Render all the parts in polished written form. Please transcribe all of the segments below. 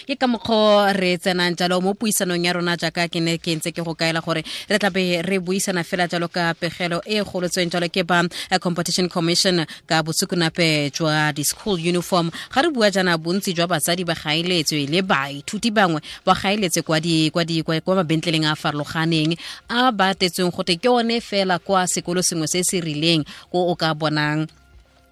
Ke ka mokgwa re tsenang jalo mo puisanong ya rona, jaaka ke ne ke ntse ke go kaela gore re tlabe re buisana fela jalo ka pegelo e golotsweng jalo ke ba Competition Commission ka bosukunape jwa di-school uniform. Ga re bua jaana, bontsi jwa batsadi ba gaeletswe le baithuti bangwe ba gaeletse kwa mabentleleng a a farologaneng a ba tetsweng gote ke one fela kwa sekolo sengwe se se rileng ko o ka bonang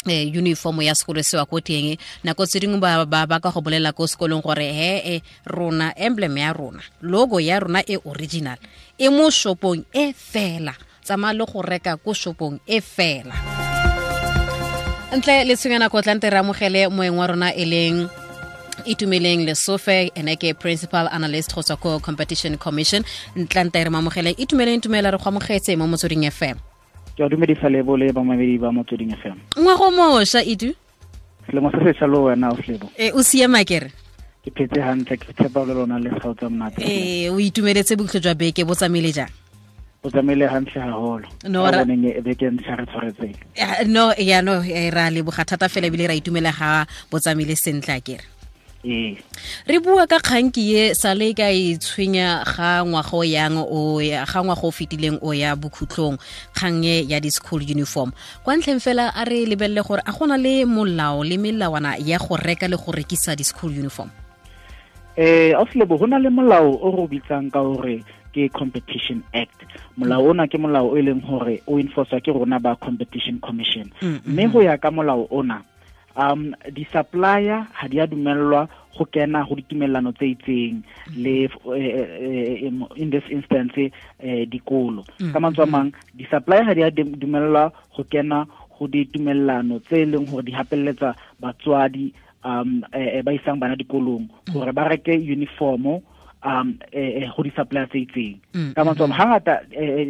uniform ya sekolo sewa ko teng. Nako tse dingwe ba ka go bolela ko sekolong gore he e rona emblem ya rona, logo ya rona e original e mo shopong e fela, tsamaya le go reka ko shopong e fela. Ntle le tshwenya nako, tlante re amogele moeng wa rona e leng Itumeleng Lesofe, ene ke principal analyst go tswa ko Competition Commission. Ntlante re mamogele. Itumeleng, tumela, re go amogetse mo Motsweding FM. Ke a dumedisa Lebo le bamamedi ba Motsweding FM. Ngwago mošwa, Itu. Selemo se sešwa le wena o Lebo. E o siama kere? Ke phetse hantle, ke tshepa le lona le gao tsa monate. Ee, o itumeletse bokhutlo jwa beke? Bo tsamaile jang? Bo tsamaile hantle haholo. No, boneng e beke ntlha re tshwaretseng. No, ya no, ra leboga thata fela ebile ra itumela ga bo tsamaile sentle a kere. Ee. Re bua ka kganki ye sale ka e tshwenya ga ngwaga o yang o ya ga ngwaga o fetileng o ya bokhutlong, kgang e ya di-school uniform. Kwa ntlheng fela a re lebelele gore a gona le molao le melawana ya go reka le go rekisa di-school uniform. Auslebo, go na le molao o re o bitsang ka gore ke Competition Act. Molao ona ke molao o e leng gore o enforcwa ke rona ba Competition Commission, mme go ya ka molao ona, di-supplier ga di a dumellwa go kena go ditumelelano tse itseng le in this instance dikolo. Ka mantswe a mang, di-supplier ga di a dumellwa go kena go ditumelelano tse e leng gore di hapelletsa batswadi ba isang bana dikolong gore ba reke uniformo go di-supplier tse itseng. Ka mantswe a mang, hangata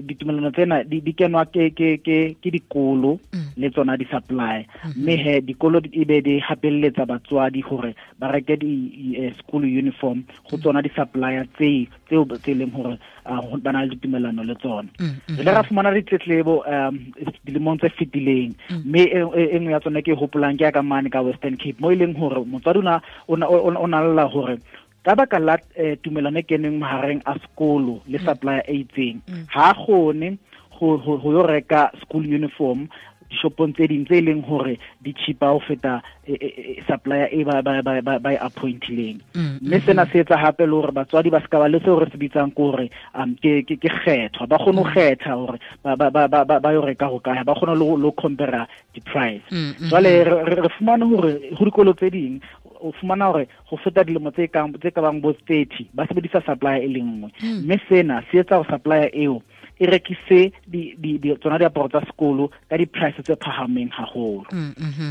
ditumelano tsena di kenwa ke dikolo le tsona di-supplier, mme he dikolo e be di hapelletsa batswadi gore ba reke di school uniform go tsona di-supplier tseo tse e leng gore ba na le ditumelano le tsona. Re ile ra fumana ditletlebo dilemong tse fetileng, mme e nngwe ya tsona ke e hopolang ke ya ka mane ka Western Cape, mo e leng gore motswadi o na lla gore ka baka la tumelano e keneng mahareng a sekolo le supplier e itseng, ha a kgone go yo reka school uniform dishopong tse ding tse e leng gore di cheaper ho feta supplier e ba e appointileng. Mme sena se etsa hape le hore batswadi ba ska ba le seo re se bitsang ke hore ke kgethwa, ba kgone ho kgetha hore ba yo reka ho kae, ba kgone le ho compare di-price. Jwale re fumane hore ho dikolo tse ding o fumana hore go feta dilemo tse ka bang bo 30 ba sebedisa supplier e le nngwe, mme sena se etsa gore supplier eo e rekise di tsona diaparo tsa sekolo ka di-price tse phahameng haholo.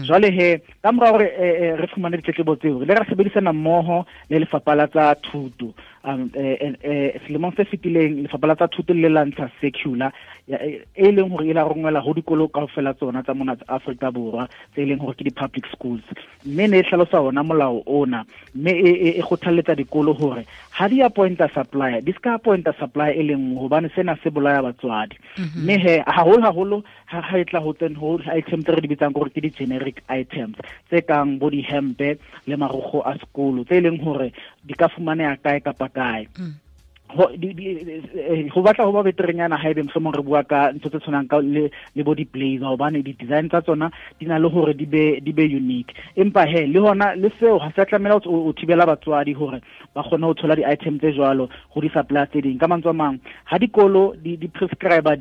Jwale he ka mora hore re fumane ditletlebo tseo, re ile ra sebedisana mmoho le Lefapha la tsa Thuto. Selemong se fetileng Lefapha la tsa Thuto le la ntsha circular e leng hore e la rongwela ho dikolo kaofela tsona tsa mona Afrika Borwa tse e leng hore ke di-public schools, mme ne e hlalosa ona molao ona, mme e kgothalletsa dikolo hore ha di appointa supplier, di ska appointa supplier e leng nngwe, hobane sena se bolaya batswadi. Mme he haholo haholo ha e tla ho tsen ho item tse re di bitsang gore ke di-generic items tse kang bo dihempe le marokgo a sekolo tse e leng hore di ka fumaneha kae kapa kae. Ho batla ho ba beterenyana ha ebe mohlomong re bua ka ntho tse tshwanang ka le bo di-blazer, hobane di-design tsa tsona di na le hore di be unique. Empa he le hona le seo ha se a tlamela o thibela batswadi hore ba kgone ho thola di-item tse jwalo go di-supplier tse ding. Ka mantswe a mang, ha dikolo di prescribe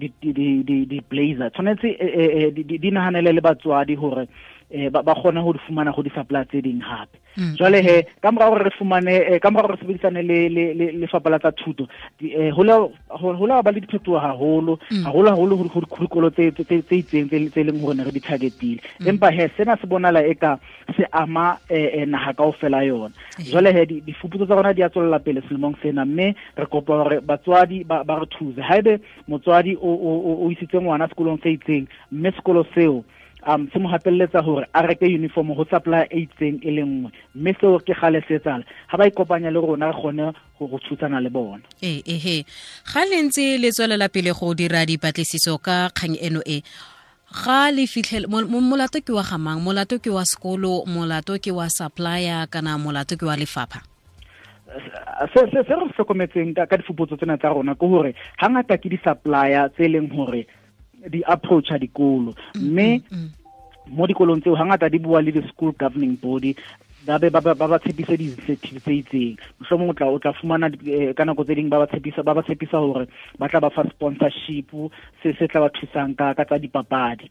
di-blazer, tshwanetse di nahanele le batswadi hore ba kgone ho di fumana go di-supplier tse ding hape. Jwale he ka mora hore re fumane ka mora hore re sebedisane le Lefapha la tsa Thuto, ho la ba le diphetoho haholo haholo haholo ho dikolo tse itseng tse leng hore ne re di targetile. Empa he sena se bonala eka se ama naha kaofela yona. Jwale he difuputso tsa rona di a tswella pele selemong sena, mme re kopa hore batswadi ba re thuse. Haebe motswadi o isitse ngwana sekolong se itseng, mme sekolo seo se mo hapelletsa hore a reke uniform ho supplier e itseng e le nngwe, mme seo ke gale se etsala, ha ba ikopanya le rona re kgone go thusana le bona. Ee, ehe, ga le ntse le tswelela pele go dira dipatlisiso ka kgang eno e, Ga le fitlhele molato ke wa gamang, molato ke wa sekolo, molato ke wa supplier, kana molato ke wa lefapha? Se se se re hlokometseng ka difuputso tsena tsa rona ke hore hangata ke di-supplier tse leng hore di approacha dikolo, mme mo dikolong tseo hangata di bua le di-school governing body, ba be ba ba tshepise di-incentive tse itseng. Mohlomong o tla fumana ka nako tse ding ba ba tshepisa hore ba tla ba fa sponsorship se se tla ba thusang ka tsa dipapadi,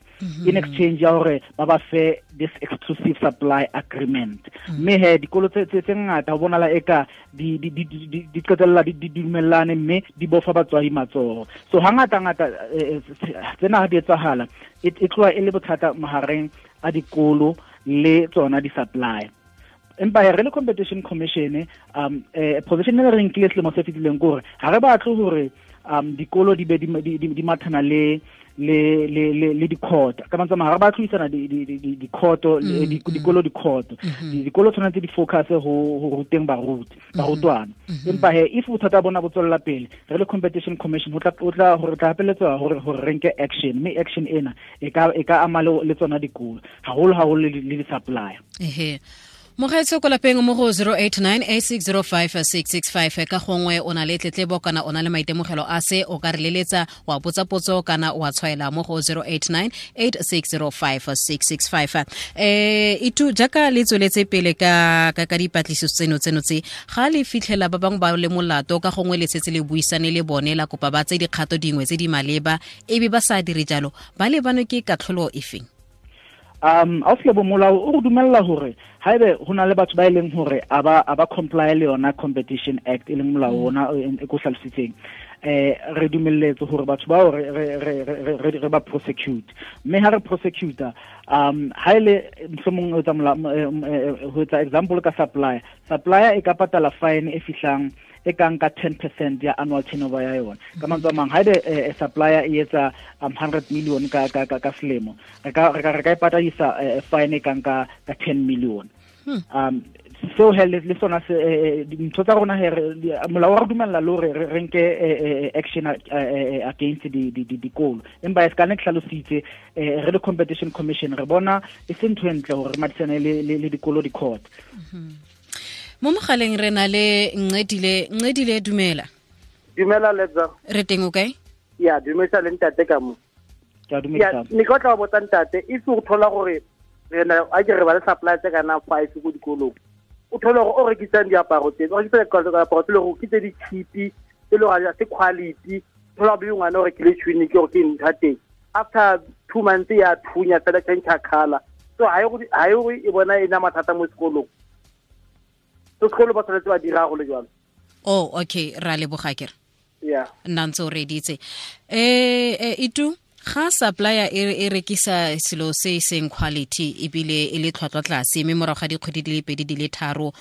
in exchange ya hore ba ba fe this exclusive supply agreement. Mme he dikolo tse ngata ho bonala eka di qetella di dumellane mme di bofa batswadi matsoho. So hangata ngata tsena ha di etsahala e tloha e le bothata mahareng a dikolo le tsona di-supply. Empa re le Competition Commission, position e re nkile selemo se fetileng ke hore ha re batle hore dikolo di be di mathana le di-court. Ka mantswe a mang, ha re batle ho isana di-court, dikolo di-court. Dikolo tshwanetse di focus ho ruteng barutwana. Empa he if bothata bona bo tswella pele, re le Competition Commission ho tla hore tla hapeletswa hore re nke action, mme action ena e ka ama le tsona dikolo haholo haholo le di-supplier. Ehe. Mogaetso ko lapeng mo go 0898605665, ka gongwe o na le tletlebo kana o na le maitemogelo a se, o ka re leletsa wa botsa potso kana wa tshwaela mo go 0898605665. Itu jaaka le tsweletse pele ka ka dipatlisiso tseno tse, ga le fitlhela ba bangwe ba le molato, ka gongwe le setse le buisane le bone la kopa ba tse dikgato dingwe tse di maleba, ebe ba sa dire jalo, ba lebanwe ke katlholo efeng? Auslebo, molao o re dumella hore haebe ho na le batho ba e leng hore a ba comply le yona Competition Act, e leng molao ona e ko hlalositseng, re dumelletse hore batho bao re ba prosecute. Mme ha re prosecute, ha ile mohlomong ho etsa ho etsa example ka supplier e ka patala fine e fihlang e kang ka 10% ya annual turnover ya yona. Ka mantswe a mang, haebe supplier e etsa 100 million ka selemo, re ka e patadisa fine e kang ka 10 million. Seo he le sona se dintho tsa rona he molao wa re dumella le hore re nke action against dikolo. Empa e se ka ne ke hlalositse, re le Competition Commission re bona e se ntho e ntle hore re madisane le dikolo di-court. Mo mogaleng re na le Ncedile, dumela. Dumela Letsa. Re teng o kae? Ya, dumela le ntate ka mo. Ke a dumedisa. Ne ke tla botsa ntate, if o thola gore re na a ke re ba le supply tse kana 5 go dikolong. O thola gore o rekisang diaparo tse, o rekisa diaparo tse le gore ke tse di cheap, tse le gore se quality, thola bo ngwana o rekile tunic gore ke ntha teng. After 2 months ya thunya fela change color. So ha e e bona ena mathata mo sekolong. Sekolo ba tshwanetse ba dira go le jalo. Oh, okay, ra leboga kere. Yeah. Nna ntse o reditse. Itu ga supplier e rekisa selo se seng quality ebile e le tlhwatlhwa tlase, mme morago ga dikgwedi di le 2 di le 3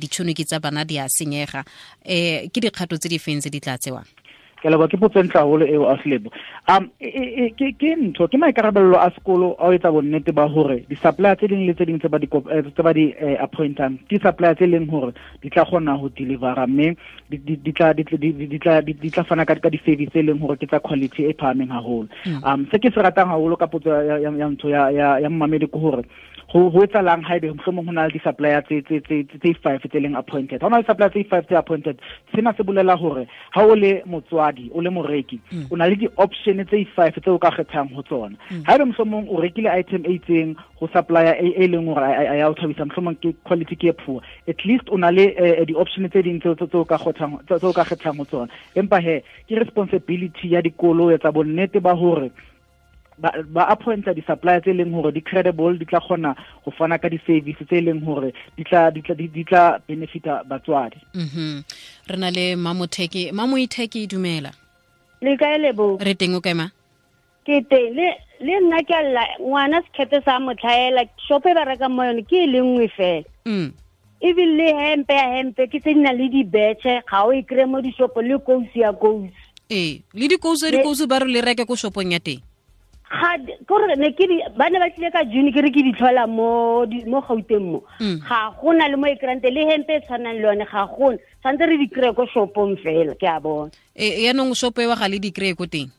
ditšhono tsa bana di a senyega, ke dikgato tse di feng tse di tla tsewang? Ke leboha, ke potso e ntle haholo eo, Auslebo. Ke ntho, ke maikarabello a sekolo a ho etsa bonnete ba hore di-supplier tse ding le tse ding tse ba di appointang ke supplier tse leng hore di tla kgona ho delivera, mme di tla fana ka di-service tse leng hore ke tsa quality e phahameng haholo. Se ke se ratang haholo ka potso ya ntho ya mmamedi ke hore ho etsalang haebe mohlomong ho na le di-supplier tse 5 tse leng appointed. Ha ho na le supplier tse 5 tse appointed, sena se bolela hore ha o le motswadi, o le moreki, o na le di-option tse 5 tse o ka kgethang ho tsona. Haebe mohlomong o rekile item e itseng ho supplier e leng hore a ya o thabisa, mohlomong ke quality ke e poor, at least o na le di-option tse ding tse o ka kgethang ho tsona. Empa he ke responsibility ya dikolo ho etsa bonnete ba hore ba appointa di-supplier tse leng hore di credible, di tla kgona ho fana ka di-service tse leng hore di tla benefita batswadi. Re na le Mamotheki. Mamoitheki, dumela. Le kae Lebo? Re teng, o kae ma? Ke teng. Le nna ke alla ngwana sekete sa motlhaela, shop e ba rekang mo yone ke e le nngwe fela. Ebile le hempe ya hempe ke tse di nang le dibetšhe, ga o e kry-e mo dishopong, le kousu ya kousu. Ee, le dikousu ba re le reke ko shopong ya teng. Ga kore ne ke ba ne ba tlile ka June ke re ke di tlhola mo Gauteng mo. Ga gona le mo e kry-ang teng, le hempe e tshwanang le yone ga gona. Tshwanetse re di kry-e ko shopong fela, ke a bona. Yaanong shopo eo ga le di kry-e ko teng?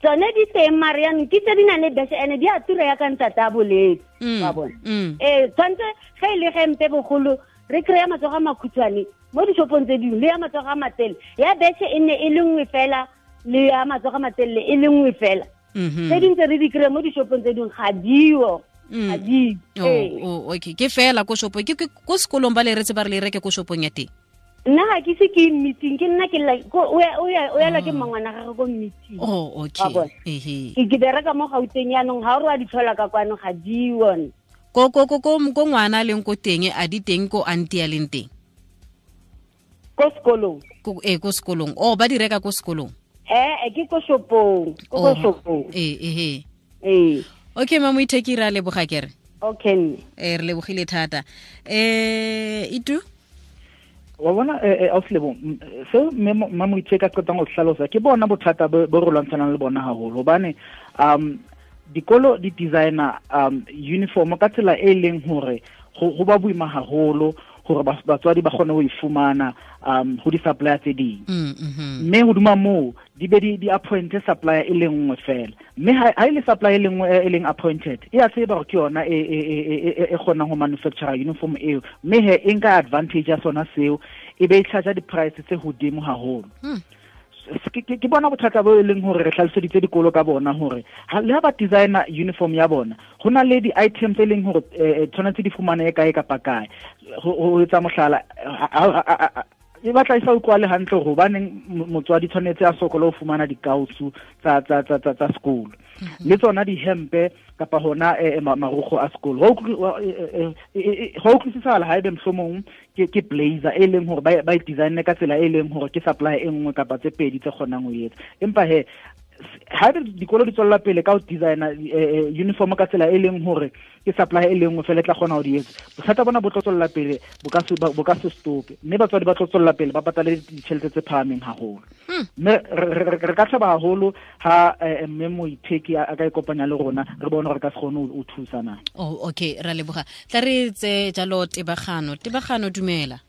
Tsone di teng mare yanong ke tse di nang le beshe ene di a tura ya ka ntate a boletse wa bona. Tshwanetse ge e le gempe bogolo re kry-a matsogo a makhutshwane mo dishopong tse dingwe le ya matsogo a matelele ya beshe e nne e le nngwe fela le ya matsogo a matelele e le nngwe fela. Tse dingwe tse re di kry-a mo dishopong tse dingwe ga dio. Okay, ke fela ko shopong ke ko sekolong ba le retse ba re le reke ko shopong ya teng. Nna ga ke se ke meeting ke nna ke o ya ke mmangwana gagwe ko meeting. Oh, okay. Ke bereka mo Gauteng yanong ga o re wa di tlhola ka kwano ga di one. Ko ko ko ko ngwana a leng ko teng a di teng ko auntie a leng teng. Ko sekolong. Ko sekolong. Oh, ba di reka ko sekolong. Ke ko shopong, ko shopong. Okay, mama Moitheki ra leboga kere. Okay. Re lebogile thata. Itu wa bona auslebo seo mme Moitheki a qetang ho hlalosa ke bona bothata bo re lwantshanang le bona haholo hobane dikolo di designer uniform ka tsela e leng hore go ba boima haholo hore batswadi ba kgone ho e fumana ho di-supplier tse ding. Mme hodima moo di be di appointe supplier e le nngwe fela. Mme ha e le supplier e le nngwe e leng appointed e a tseba hore ke yona e kgonang ho manufacture uniform eo, mme he e nka advantage ya sona seo e be e charge di-price tse hodimo haholo. Ke bona bothata bo e leng hore re hlaloseditse dikolo ka bona hore le ha ba designer uniform ya bona ho na le di-items tse leng hore tshwanetse di fumane kae kapa kae. Ho etsa mohlala e batla e sa utlwale hantle hore hobaneng motswadi tshwanetse a sokole ho fumana dikausu tsa sekolo le tsona dihempe kapa hona marukgo a sekolo. Ho utlwisisala haebe mohlomong ke blazer e leng hore ba e designe ka tsela e leng hore ke supply e nngwe kapa tse pedi tse kgonang ho etsa, empa he haebe dikolo di tswella pele ka ho designer uniform ka tsela e leng hore ke supply e leng fela tla kgona ho di etsa, bothata bona bo tlo tswella pele bo ka se stope, mme batswadi ba tlo tswella pele ba patale ditjhelete tse phahameng haholo. Mme re ka thaba haholo ha mme Moitheki a ka ikopanya le rona re bone hore ka se kgone ho thusa na. Oh, okay, ra leboga. Tla re tse jalo Tebagano. Tebagano dumela.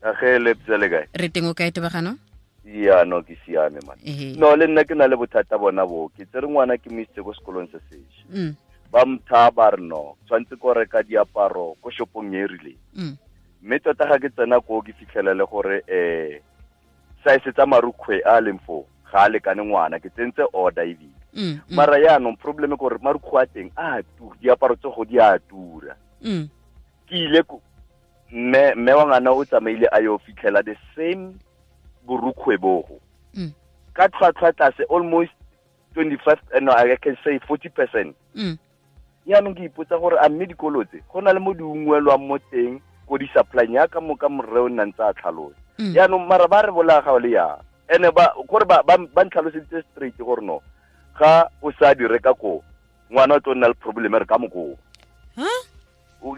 Age le ptsele kae? Re teng o kae Tebagano? Ya no ke siame man. No le nna ke na le bothata bona bo ke tsere ngwana ke mo isitse ko sekolong se sesha. Ba mtha ba re no tshwantse ko reka diaparo ko shopong e rileng. Mme tota ga ke tsena ko ke fitlhelele gore size tsa marukgwe a leng foo ga a lekane ngwana ke tsentse order ebile. Mara yaanong problem ke gore marukgwe a teng a tura, diaparo tse go di a tura. Ke ile mme wa ngwana o tsamaile a yo fitlhela the same borukgwe bogo ka tlhwatlhwa tlase almost 25, no I can say 40%. Yaanong ke ipotsa gore a mme dikolo tse go na le mo di ungwelwang mo teng ko di supply ya ka mo ka morre o nna ntse a tlhalosa. Yaanong mara ba re bolaya ga le yang ene ba gore ba ntlhaloseditse straight gore no ga o sa di reka ko ngwana o tlo nna le problem re ka mokoo.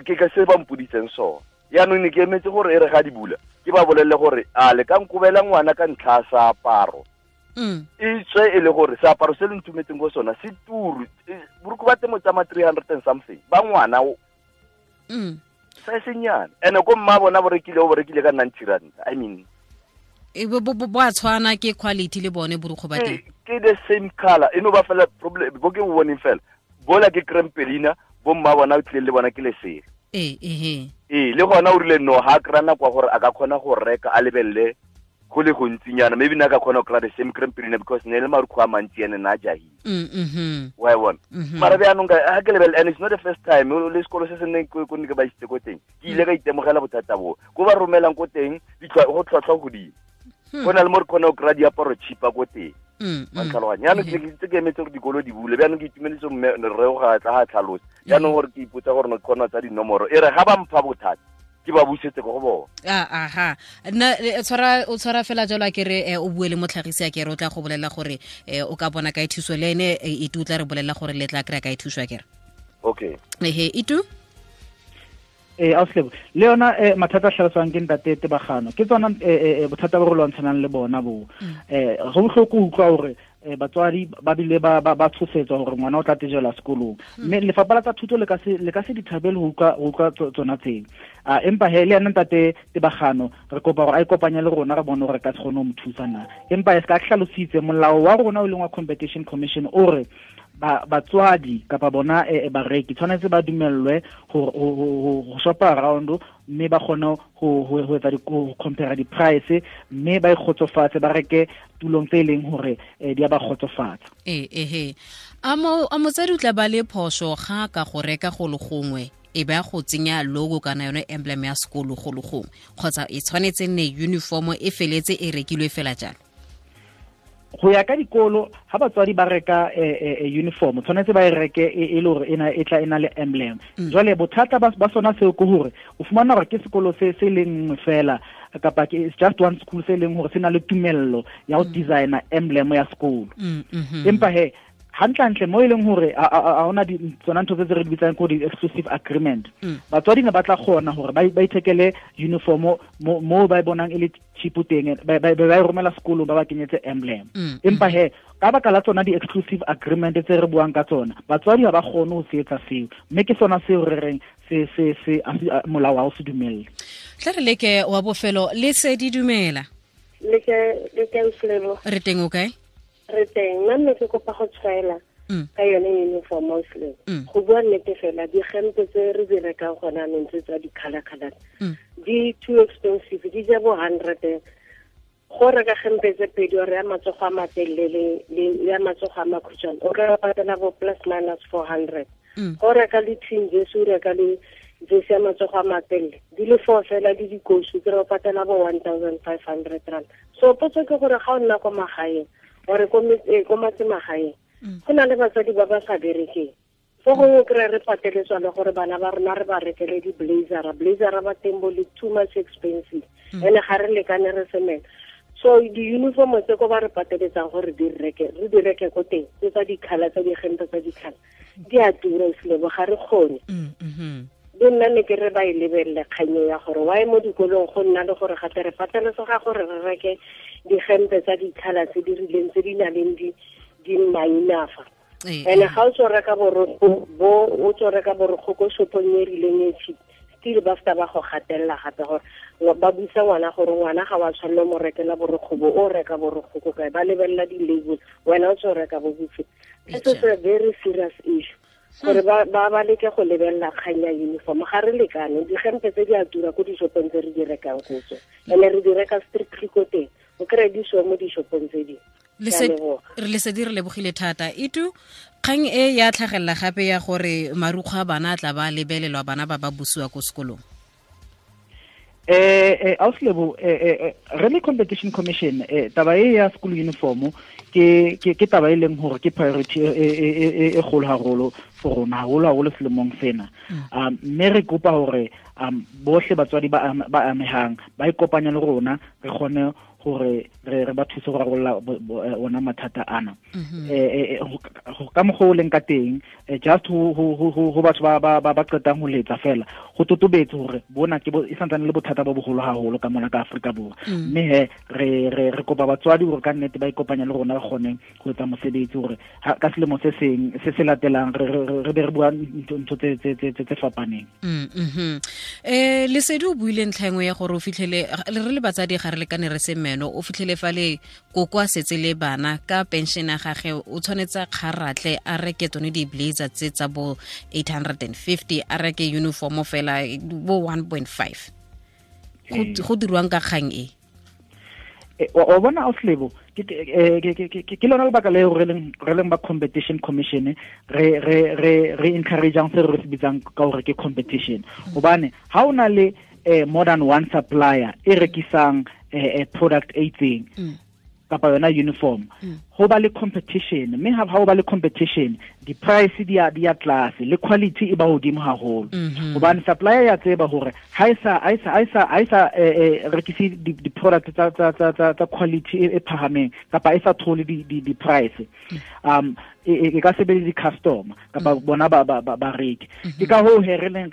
Ke ka se ba mpoditseng sona. Yaanong ne ke emetse gore e re ga di bula ke ba bolelle gore a le ka nkobela ngwana ka ntlha ya seaparo. E tswe e le gore seaparo se le ntumetseng go sona se turu, borukgo ba temo tsa ma 300 and something ba ngwana o sa senyana ene ko mma bona bo rekile o bo rekile ka 90 rand. I mean e bo a tshwana ke quality le bone borukgo ba teng ke the same color e no ba fela problem bo ke bo boneng fela bola ke crempelina bo mma bona o tlile le bona ke lesela. Le gona o rile no ha kry-a nako ya gore a ka kgona go reka a lebelele go le gontsinyana, maybe nna ka kgona go kry-a the same crempelina because ne le marukgwe a mantsi ene na a jahile. Wa e bona. Mara bjaanong ga ke lebelele, and it's not the first time le sekolo se se nneng ko ne ke ba isitse ko teng ke ile ka itemogela bothata boo ko ba romelang ko teng go tlhwatlhwa godimo. Go na le mo re kgona go kry-a diaparo cheaper ko teng. Wa ntlhaloganya. Jaanong ke ntse ke emetse gore dikolo di bule, bjaanong ke itumeletse mme rre o ga tla ga tlhalosa. Jaanong gore ke ipotsa gore no ke kgona tsa dinomoro e re ga ba mpha bothata ke ba busetse ko go bona. Aha. Nna o tshwara fela jalo a kere o bue le motlhagisi a kere o tla go bolela gore o ka bona kae thuso le ene Itu o tla re bolela gore le tla kry-a kae thuso a kere. Okay. Ehe Itu? Auslebo le yona mathata a hlaloswang ke ntate Tebagano ke tsona bothata bo re lwantshanang le bona bo. Go bohloko utlwa hore Batswadi ba bile ba tshosetswa hore ngwana o tla tejelwa sekolong. Mme lefapha la tsa thuto le ka se di thabele ho utlwa tsona tseo. Empa he le yena ntate Tebagano re kopa hore a ikopanye le rona re bone hore ka se kgone ho mo thusa na. Empa e se ka hlalositse molao wa rona o leng wa Competition Commission o re batswadi kapa bona bareki tshwanetse ba dumellwe ho shopa around mme ba kgone ho etsa ho compare di-price mme ba ikgotsofatse ba reke tulong tse leng hore di a ba kgotsofatsa. A motsadi o tla ba le phoso ga ka go reka go le gongwe e ba go tsenya logo kana yone emblem ya sekolo go le gongwe kgotsa e tshwanetse nne uniform e feletse e rekilwe fela jalo? Go ya ka dikolo ha batswadi ba reka uniform tshwanetse ba e reke e le hore ena e tla ena le emblem. Jwale bothata ba sona seo ke hore o fumana hore ke sekolo se se leng fela kapa ke it's just one school se leng hore se na le tumello ya ho designer emblem ya sekolo. Empa he hantlentle mo e leng hore a hona di tsona ntho tse re di bitsang ko di exclusive agreement. Batswadi ne ba tla kgona hore ba ithekele uniform mo ba e bonang e le cheap teng ba e romela sekolong ba ba kenyetse emblem. Empa he ka baka la tsona di exclusive agreement tse re buang ka tsona batswadi ha ba kgone ho se etsa seo, mme ke sona seo re reng se molao ha o se dumelle. Tla re leke wa bofelo le se di dumela. Le ke re teng o kae? Re teng nna mme ke kopa go tshwaela ka yone uniform mostly. Go bua nnete fela digempe tse re di rekang gona anong tse tsa di-colour-colour di too expensive, di ja bo 100. Go reka gempe tse pedi ore ya matsogo a matelele le ya matsogo a makhutshwane o ka patela bo plus minus 400. Go reka le twin jersey o reka le jersey ya matsogo a matelele di le 4 fela le dikosu ke re o patela bo 1500 rand. So potso ke gore ga o nna ko magaeng ore ko matsemagaeng go na le batswadi ba ba sa berekeng fo gongwe kry re pateletswa le gore bana ba rona re ba rekele di-blazera blazera ba teng bo le too much expensive ene ga re lekane re semela. So di-uniform tse ko ba re pateletsang gore re di reke ko teng tse tsa di-colour tsa digempe tsa di-colour di a tura selebo ga re kgone. Le nna ne ke re ba e lebelele kganyo ya gore why mo dikolong go nna le gore gape re pateletsega gore re reke digempe tsa di-colour tse di rileng tse di nang le di mainafa. Ene ga o tswa reka borokgo bo o tswa reka borokgo ko shopong e rileng e cheap still ba feta ba go gatelela gape gore ba busa ngwana gore ngwana ga wa tshwanela mo rekela borokgo bo o reka borokgo ko kae ba lebelela di-label wena o tswa reka bo bofe. This is a very serious issue gore ba leke go lebelela kgang ya uniform ga re lekane digempe tse di a tura ko dishopong tse re di rekang go tswa ene re di reka strictly ko teng o kry di so mo dishopong tse dingwe. Re lesedi re lebogile thata. Itu kgang e ya tlhagelela gape ya gore marukgwe a bana a tla ba lebelelwa bana ba ba busiwa ko sekolong. Auslebo re le Competition Commission taba e ya school uniform ke taba e leng hore ke priority e kgolo haholo for rona haholo haholo selemong sena. Mme re kopa hore bohle batswadi ba amehang ba ikopanye le rona re kgone hore re ba thuse go rarolla ona mathata ana. Ka mokgwa o leng ka teng just ho batho ba qetang ho letsa fela go totobetse hore bona ke e santsane le bothata bo boholo haholo ka mona ka Afrika Borwa. Mme he re kopa batswadi hore ka nnete ba ikopanye le rona re kgone ho etsa mosebetsi hore ka selemo se seng se se latelang re be re bua ntho tse fapaneng. Lesedi o buile ntlha engwe ya gore o fitlhele re le batsadi ga re lekane re se meno o fitlhele fa le koko a setse le bana ka pension ya gage o tshwanetse a kgaratlhe a reke tsone di-blazer tse tsa bo 850 a reke uniform fela bo 1.5. Go dirwang ka kgang e? O bona Auslebo ke lona lebaka le re leng ba Competition Commission re encourageang se re se bitsang ka hore ke competition hobane ha o na le more than one supplier e rekisang product e itseng kapa yona uniform ho ba le competition mme ha ho ba le competition di-price di ya tlase le quality e ba hodimo haholo hobane supplier ya tseba hore ha e sa rekise di-product tsa quality e phahameng kapa e sa thole di-price e ka sebedisa di-customer kapa bona ba reke. Ke ka hoo he re leng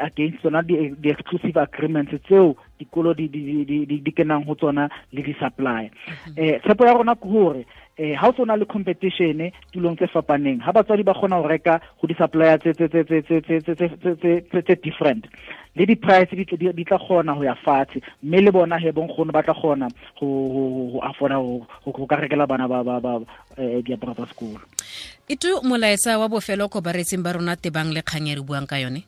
against tsona di-exclusive agreements tseo dikolo di kenang ho tsona le di-supplier. Tshepo ya rona ke hore ha o na le competition tulong tse fapaneng, ha batswadi ba kgona ho reka ho di-supplier tse different, le di-price di tla kgona ho ya fatshe, mme le bona he bonkgono ba tla kgona ho afforda ho ka rekela bana ba diaparo tsa sekolo. Itu molaetsa wa bofelo ko baretsing ba rona tebang le kgang e re buang ka yone?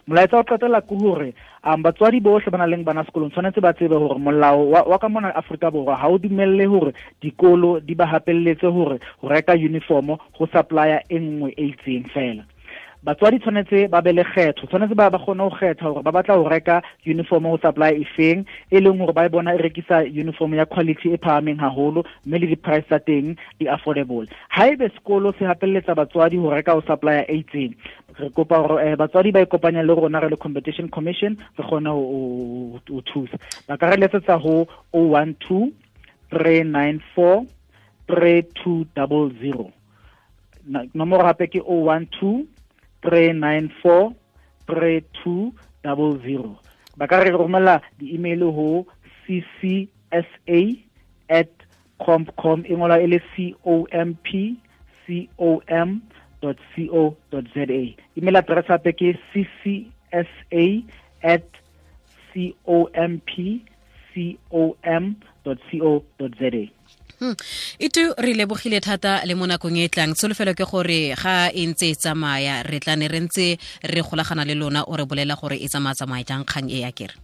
Molaetsa o qetela ke hore batswadi bohle ba nang le bana sekolong tshwanetse ba tsebe hore molao wa ka mona Afrika Borwa ha o dumelle hore dikolo di ba hapelletse hore ho reka uniform ho supplier e nngwe e itseng fela. Batswadi tshwanetse ba be le kgetho, tshwanetse ba kgone ho kgetha hore ba batla ho reka uniform ho supply efeng, e leng hore ba e bona e rekisa uniform ya quality e phahameng haholo, mme le di-price tsa teng di affordable. Haebe sekolo se hapelletsa batswadi ho reka ho supplier e itseng, re kopa hore batswadi ba ikopanya le rona re le Competition Commission, re kgone ho thusa. Ba ka re letsetsa ho 012 394 3200. Nomoro hape ke 012 394 3200. Ba ka re romela di-email ho ccsa@compcom, e ngolwa e le compcom.co.za. Email address hape ke ccsa@compcom.co.za. Itu re lebogile thata le mo nakong e tlang. Tsholofelo ke gore ga e ntse e tsamaya re tla ne re ntse re golagana le lona, o re bolela gore e tsamaya jang kgang e ya kere.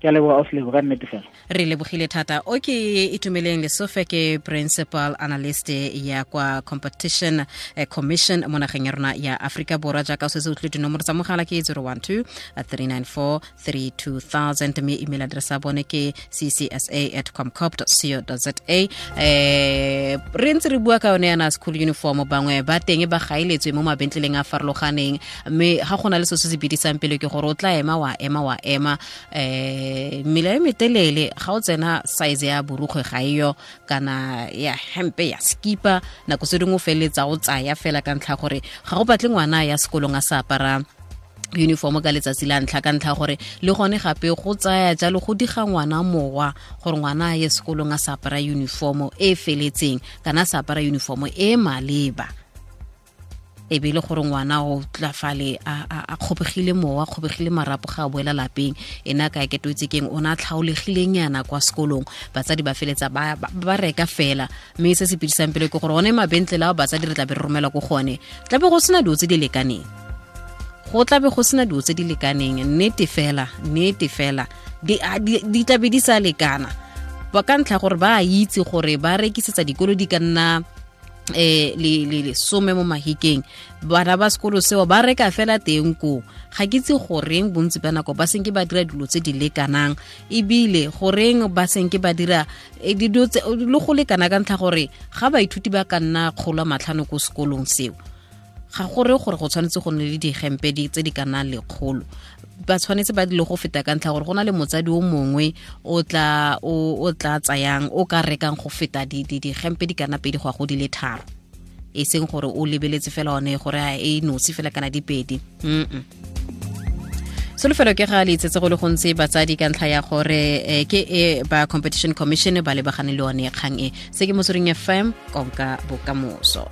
Ke a leboga, Ausi, ka nnete fela. Re lebogile thata. O ke Itumeleng Lesofe, ke principal analyst ya kwa Competition Commission mo nageng ya rona ya Afrika Borwa. Jaaka o setse o tlile, dinomoro tsa mogala ke 012 394 3200, mme email address ya bone ke ccsa@comcop.co.za. Re ntse re bua ka yone yana school uniform, bangwe ba teng ba gaeletswe mo mabentleleng a farologaneng, mme ga go na le se se bidisang pele ke gore o tla ema wa ema mmele e metelele, ga o tsena size ya borukgwe ga eyo, kana ya hempe ya skipa, nako se dingwe o feleletsa o tsaya fela ka ntlha gore ga go batle ngwana ya sekolong a sa apara uniform ka letsatsi la ntlha, ka ntlha gore le gone gape go tsaya jalo go diga ngwana mowa gore ngwana a ye sekolong a sa apara uniform e feletseng, kana a sa apara uniform e maleba, e be le gore ngwana o tla fale a kgobegile mowa, a kgobegile marapo ga a boela lapeng, ena ka ke toitse keng o na tlhaolegileng yana kwa sekolong. Batsadi ba feletsa ba reka fela, mme se se pidisang pele ke gore one mabentlele ao batsadi re tla be re romela ko gone, tla be go sena dilo tse di lekaneng, go tla be go sena dilo tse di lekaneng, nnete fela di tla be di sa lekana, ba ka ntlha gore ba a itse gore ba rekisetsa dikolo di ka nna le some mo mahikeng, bana ba sekolo seo ba reka fela teng ko. Ga ke itse goreng bontsi ba nako ba senke ba dira dilo tse di lekanang, ebile goreng ba senke ba dira dilo tse le go lekana, ka ntlha gore ga baithuti ba ka nna 500 ko sekolong seo, ga gore gore go tshwanetse go nne le digempe tse di ka nnang 100, ba tshwanetse ba dile go feta, ka ntlha gore go na le motsadi o mongwe o tla tsayang o ka rekang go feta digempe di kana 2 go ya go di le 3, e seng gore o lebeletse fela one gore e nosi fela kana di 2. Solofelo ke ga le itsetse go le gontsi batsadi, ka ntlha ya gore ke e ba Competition Commission ba lebagane le one kgang e. Se ke Motsweding FM, konka bokamoso.